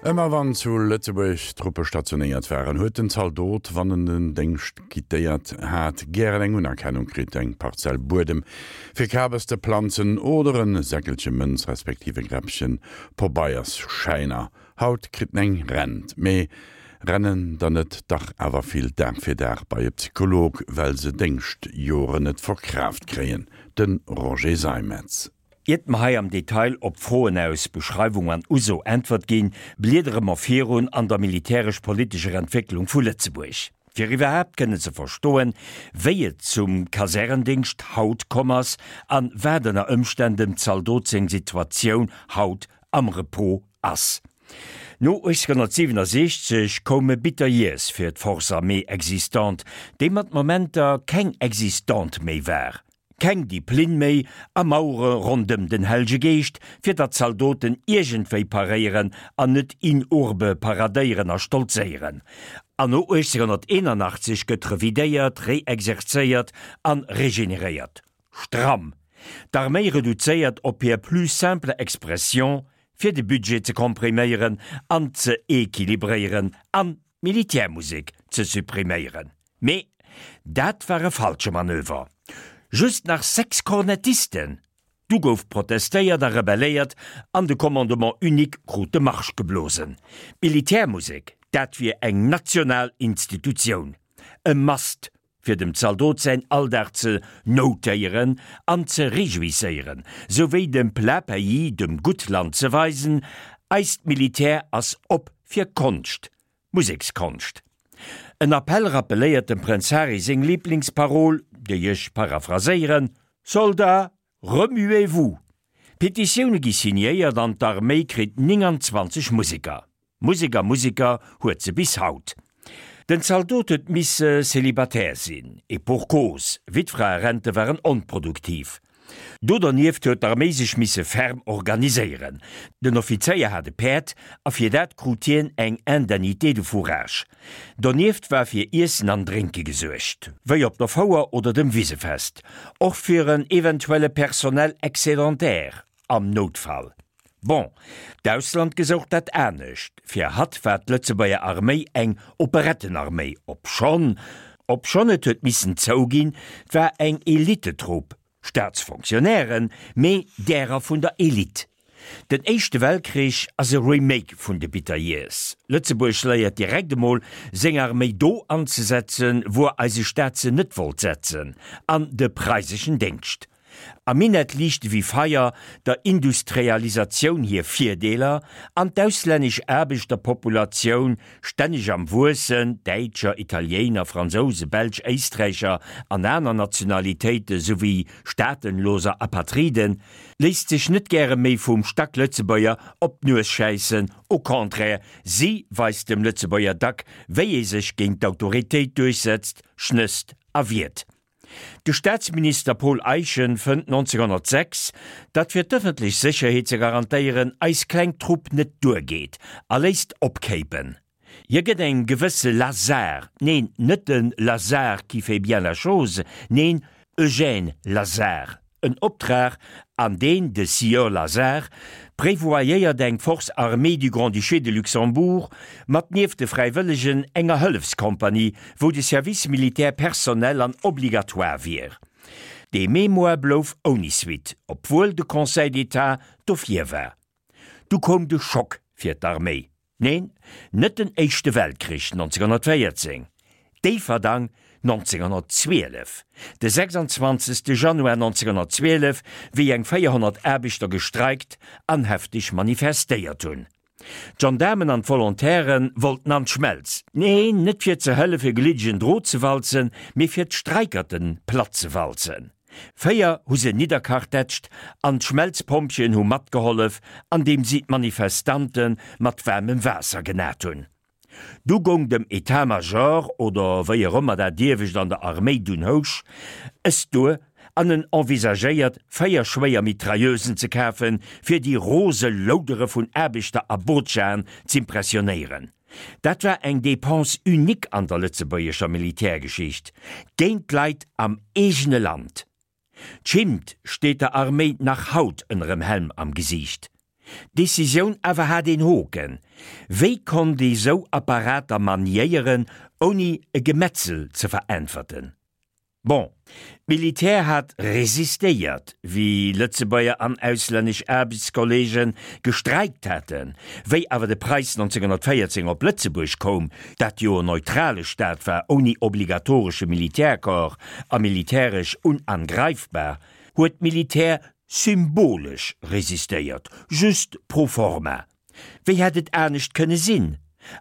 Ëmmer wann zu Lëtzebuerg Truppe stationéiert waren, huet den Zaldot, wann en den Déngscht quittéiert hat, gären eng Unerkennung kritt, eng Parzell Buedem fir Kabes ze planzen oder en Säckelche Mënz respektiv e Gräppchen Pobeiersschäiner. Haut kritt en eng Rent, mee rennen der net dach awer vill Dag fir Dag bei e Psycholog, well se Déngschtjoren net verkraaft kréien? De Roger Seimetz. Iert mer hei am Detail op d'Froen aus Beschreiwung an Uso Äntwert ginn, bliedere mer virun an der militäresch-politescher Entwécklung vu Lëtzebuerg, fir iwwerhaapt kënnen ze verstoen, wéi et zum Kasärendingscht haut komm ass an wat ënner Ëmstänn dem Zaldot seng Situatioun haut am Repos ass. No 1867 koume bitter Years fir d'Force armée existante, déi mat Momenter keng existante méi war. Keng Diplinn méi a Mauere rondëm den Hellge Geescht, fir datt d'Zaldoten iergendwéi paréieren an net in urbe paradéieren a stolzéieren. An no 1881 gëtt revidéiert, reexerzéiert an regeneréiert. Stramm! D'Arméi reduzéiert op hir plus simple expression, fir de Budget ze kompriméieren an ze equilibréieren an d'Militärmusek ze suppriméieren. Mee dat war e falsche Manöver. Just nach 6 Kornettisten! Du gouf protestéiert a rebelléiert an de Commandement unique krut de Marsch geblosen. D'Militärmusek, dat wier eng national Institutioun, e Must, fir dem Zaldot säin Alldag ze notéieren an ze rejouisséieren, souwéi dem plat pays, dem Guttland ze weisen, eist Militär ass op fir Konscht, Musekskonscht. En Appell rappeléiert dem Prënz Harry seng Liblingsparol, déi ech paraphraséieren, Soldats, remuez-vous! Petitioune gi signéiert an d'Arméi kritt 29 Museker. Musek a Museker huet se bis haut. Den Zaldot huet misse célibataire sinn, et pour cause, Wittfraerente waren onproduktiv. Do dernieft huet d'Arméi sech misse ferm organiséieren. Den Offizéier hat e Päerd a fir dat krut hien eng Indemnité de fourrage. Donieft war fir Iessen an Drénke gesuergt, wéi op der Fouer oder dem Wisefest, och fir en eventuelle Personnel excédentaire am Noutfall. Bon, d'Ausland gesouch dat anescht. Fir hatt war d'Lëtzebuerger Arméi eng Operettenarméi, obschonn, obschonn et huet missen zouginn, 't war eng Elitetrupp, Staatsfonctionnairen, mee därer vun der Elite. Den Éischte Weltkrich ass e Remake vun de Bitter Years. Lëtzebuerg léiert direkt emol, seng Arméi do anzesetzen, wuer eise Staat se net wollt setzen, an de preiseschen Déngscht. Am Minett liichte wéi Feier der Industrialisatioun hir Virdeeler, an d'auslännesch Aarbechterpopulatioun, stänneg am Wuessen, Däitscher, Italiéiner, Fransouse, Belsch, Éisträicher an aner Nationalitéite souwéi staatenloser Apatriden, léisst sech net gäre méi vum Stacklëtzebuerger op d'Nues schäissen, au contraire, si weist dem Lëtzebuerger dack, wéi ee sech géint d'Autoritéit duerchsetzt, schnësst a wiert. De Staatsminister Paul Eyschen fënnt 1906, datt fir d'ëffentlech Sécherheet ze garantéieren eis kleng Trupp net duergeet a léisst opkéipen. Hie gëtt eng gewësse Lazare, neen, net de Lazare qui fait bien la chose, neen, Eugène Lazare, en Optrag, an deen de Sieur Lazare prévoyéiert eng Force armée du Grand-Duché de Luxembourg mat nieft de Fräiwëllegen enger Hëllefskompanie, wou de Service militaire personnel an obligatoire wier. Dee Mémoire blouf ouni Suite, obwuel de Conseil d'État dofir war. Du koum de Schock fir d'Arméi. Neen, net den Éischte Weltkrich 1914, Déifferdang 1912, de 26. Januar 1912, wéi eng 400 Aarbechter gestreikt an hefteg manifestéiert hunn. D'Gendaarmen an d'Volontaire wollten an d'Schmelz, neen, net fir ze hëllefe gliddegen Drot ze walzen, mee fir d'Streikerten platt ze walzen. 4 hu se nidderkartätscht an d'Schmelzpompjeeën hu matgehollef, andeem si d'Manifestante mat waarmem Waasser genat hunn. Du goung dem Etat-Major, oder wéi och ëmmer dat iewescht an der Arméi dunn housch, es duer an en envisagéiert, 4 schwéier Mitrailleusen ze kafen, fir déi rose Loudere vun Aarbechter a Botschaen z'impressionéieren. Dat war eng Dépense unique an der lëtzebuergescher Militärgeschicht, géint d'Leit am eegene Land. D'Schimmt steet der Arméi nach haut ënnerem Helm am Gesiicht. D'Decisioun awer hat een Hoken, Wéi konnt ee sou Apparater maniéieren, ouni e Gemetzel ze veräntwerten? Bon, d'Militär hat resistéiert, wéi Lëtzebuerger an auslännesch Aarbechtskolleege gestreikt haten. Wéi awer de Preis 1914 op Lëtzebuerg koum, dat jo en neutrale Staat war ouni obligatoresche Militärcorps a militäresch unangreifbar, huet d'Militär symbolesch resistéiert, just pro forma. Wéi hätt et anescht kënne sinn?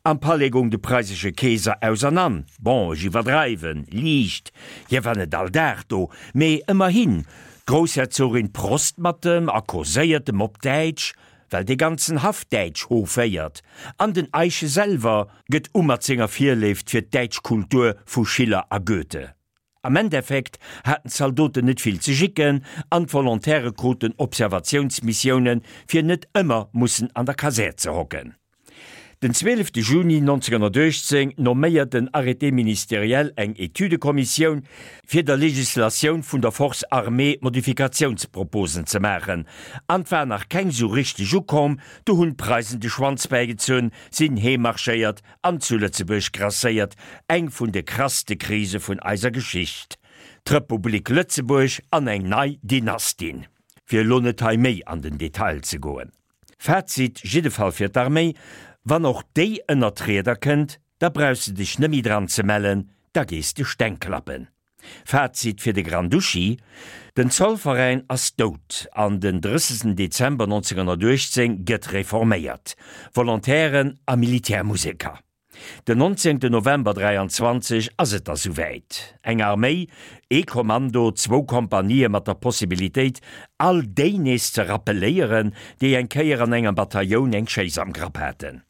Am Palais goung de preisesche Keeser ausernan, bon, ech iwwerdreiwen liicht, hie war net all Dag do, mee ëmmerhin, d'Groussherzogin prost mat em a causéiert em op Däitsch, well dee ganzen Haff Däitsch hoféiert, an den Eyschen selwer gëtt u mat senger Virléift fir d'däitsch Kultur vu Schiller a Goethe. Am Endeffekt haten d'Zaldoten net vill ze jicken an d'Volontaire kruten Observatiounsmissiounen, fir net ëmmer mussen an der Kasär ze hocken. Den 12 Juni 1918 nomméiert den Arrêté ministériel eng Etüdekommissioun, fir der Legislatioun vun der Force armée Modifikatiounsproposen ze maachen, an 't war nach keng sou richteg ukomm, du hunn d'Preisen de Schwanz bäigezunn, sinn heem marschéiert An zu Lëtzebuerg grasséiert eng vun de krasste Krise vun eiser Geschicht, d'Republik Lëtzebuerg an eng nei Dynastin. Fir elo net hei méi an den Detail ze goen. Fazit jiddefall fir d'Arméi, Wann och déi ënnert d'Rieder kënnt, da brauchs de dech nëmmi dran ze mellen, da gees de Steng klappen. Fazit fir de Grand-Duchi, Den Zollveräin ass dout an den 30 Dezember 1918 gëtt reforméiert, Volontairen a Militärmuseker. Den 19 November 23 ass et da souwäit, eng Arméi, ee Kommando, zwou Kompanië mat der Possibilitéit all déi nees ze rappeléieren, déi eng Kéier an engem Batailloun eng Schéiss am Grapp haten.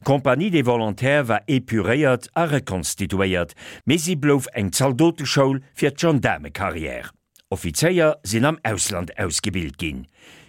D'Compagnie des Volontaires war epuréiert a rekonstituéiert, mee si blouf eng Zaldoteschoul fir d'Gendaarmecarrière. Offizéier sinn am Ausland ausgebilt ginn.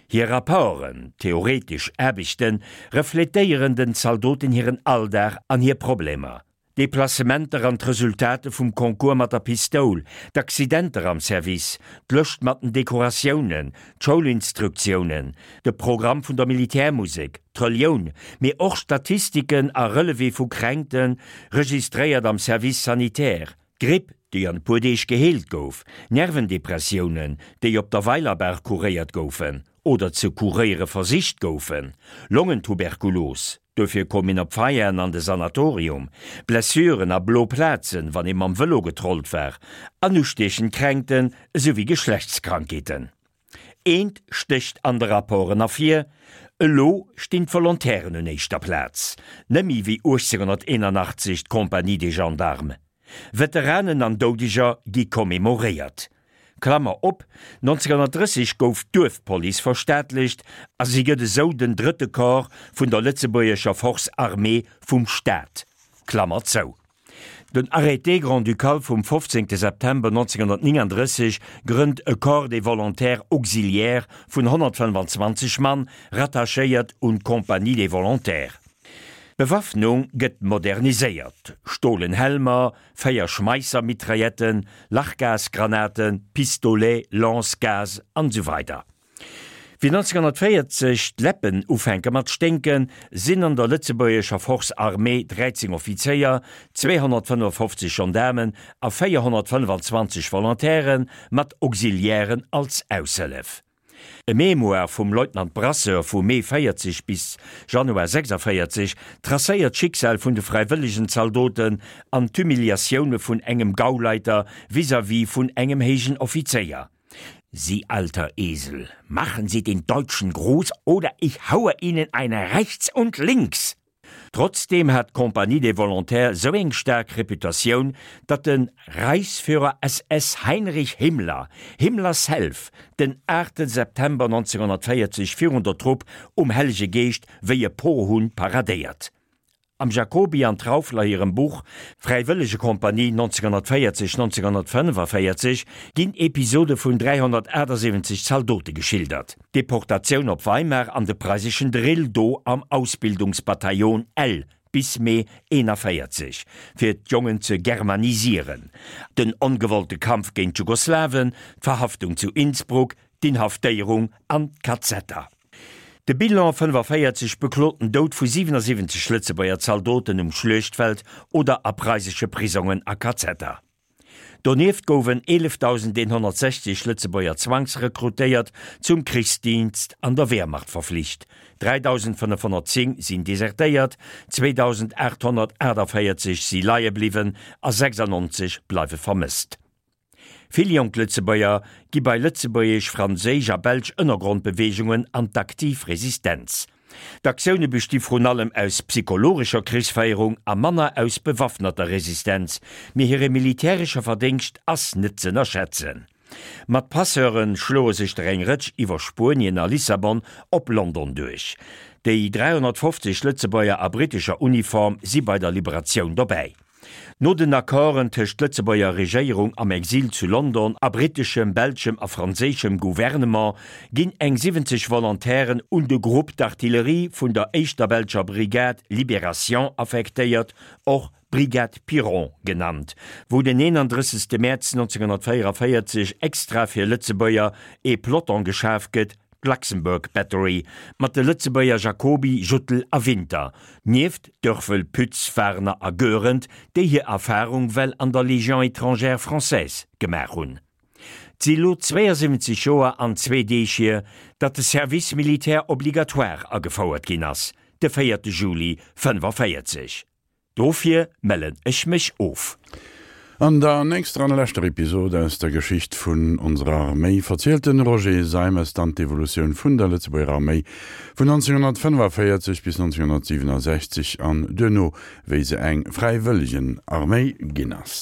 Hir Rapporten, theoretesch Aarbechten, refletéieren den Zaldoten hiren Alldag an hir Problemer. D'Deplacementer an d'Resultate vum Concours mat der Pistoul, d'Accidenter am Service, d'Lëscht mat den Dekoratiounen, d'Schoulinstruktiounen, de Programm vun der Militärmusek, d'Relioun, mee och Statistiken a Relevé vu Kränkten, registréiert am Service sanitaire, d'Gripp, déi an e puer Deeg geheelt gouf, Nervendepressiounen, déi op der Weilerbaach kuréiert goufen oder ze kuréiere versicht goufen, Longentuberkulos, Duerfir koum een op Veianen an de Sanatorium. Blessuren a blo Plazen, wann ee mam Vëlo getrollt war, an ustiechend Kränkten esouwéi Geschlechtskrankheeten. Eent stécht an de Rapporten ervir, Elo stinn d'Volontairen un éischter Plaz, nëmmi wéi 1881 d'Compagnie des Gendarmes. Veteranen an Doudeger gi commemoréiert. Klammer op, 1930 gouf d'Duerfpolice verstaatlecht a si gëtt esou den drëtte Corps vun der lëtzebuergescher Force armée vum Staat. Klammer zou. Den Arrêté grand-ducal vum 15 September 1939 grënnt e Corps des volontaires auxiliaires vun 125 Mann, rattachéiert un d'Compagnie des volontaires. D'Bewaffnung gëtt moderniséiert, stolen Helmer, 4 Schmeisser-Mitrailletten, Lachgasgranaten, Pistolets, Lance-Gaz an esou weider Wéi 1940 d'Läppen ufänke mat sténken, sinn an der lëtzebuergescher Force armée 13 Offizéier, 255 Gendaarmen a 425 Volontaire mat Auxiliairen als Aushëllef. E Mémoire vum Leutnant Brasseur vu Mee 40 bis Januar 46 tracéiert d'Schicksal vun de fräiwëllegen Zaldoten an d'Humiliatioune vun engem Gauleiter vis-à-vis vun engem héijen Offizéier. Sie alter Esel, machen Sie den Deutschen groß oder ich haue Ihnen eine rechts und links! Trotzdeem hat d'Compagnie des Volontaires sou eng staark Reputatioun, datt de Reichsführer SS Heinrich Himmler, Himmler self, den 8 September 1940 virun der Trupp um Hellege Geescht wéi e Pohunn paradéiert. Am Jacoby an Trauffler hirem Buch Fräiwëllegekompanie 1940, 1945 ginn Episode vun 378 Zaldote geschildert. D'Deportatioun op Weimar an de preiseschen Drill do am Ausbildungsbataillon L bis Mee 41, fir d'Jongen ze germanisieren, den ongewollte Kampf géint d'Jugoslawen, d'Verhaftung zu Innsbruck, d'Inhaftéierung an d'Kazetter. De Bilan, 45 beklot den Doud vu 77 Lëtzebuerger Zaldoten um Schluechtfeld oder a preisesche Prisongen a Kazetter. Donieft gouwen 11.160 Lëtzebuerger zwangsrekrutéiert, zum Krichsdienst an der Wehrmacht verflicht, 3.510 sinn desertéiert, 2.848 si leie bliwwen a 96 bleiwe vermësst. Vill jonk Lëtzebuerger gi bei lëtzebuergesch, franséisch a belsch Ënnergrondbeweegungen an d'aktiv Resistenz. D'Aktioune besti vrun allem aus psychologescher Krichsféierung a manner aus bewaffneter Resistenz, mee hire militäresche Verdéngscht ass net z'ënnerschätzen. Mat Passeure schloe sech der eng Rëtsch iwwer Spuenien a Lissabon op London duerch. Déi 350 Lëtzebuerger a brittescher Uniform si bei der Liberatioun dobäi. No den Accorden tëscht Lëtzebuerger Regéierung am Exil zu London a britteschem, belschem a franséischem Gouvernement ginn eng 70 Volontairen un de Groupe d'artillerie vun der éischter belscher Brigade Libération affektéiert, och Brigade Piron genannt, wou den 31. Mäerz 1944 extra fir Lëtzebuerger ee Peloton geschaf gëtt, D'Luxembourg Battery mat de Lëtzebuerger Jacoby, Juttel a Winter, nieft Dörfel, Pütz, Warner a Goerend, déi hir Erfarung well an der Légion étrangère française gemaach hunn. 't si lo 72 Joer an zwee Deeg hier, datt de Service militaire obligatoire agefouert ginn ass, de véierte Juli 45. Dofir mellen ech mech of. An der nächster an leschter Episod aus der Geschicht vun onserer Arméi verzielt den Roger Seimes dann d'Evolutioun vun der Lëtzebuerger Arméi vun 1945 bis 1967 an duerno wéi se eng Fräiwëllegenarméi ginn ass.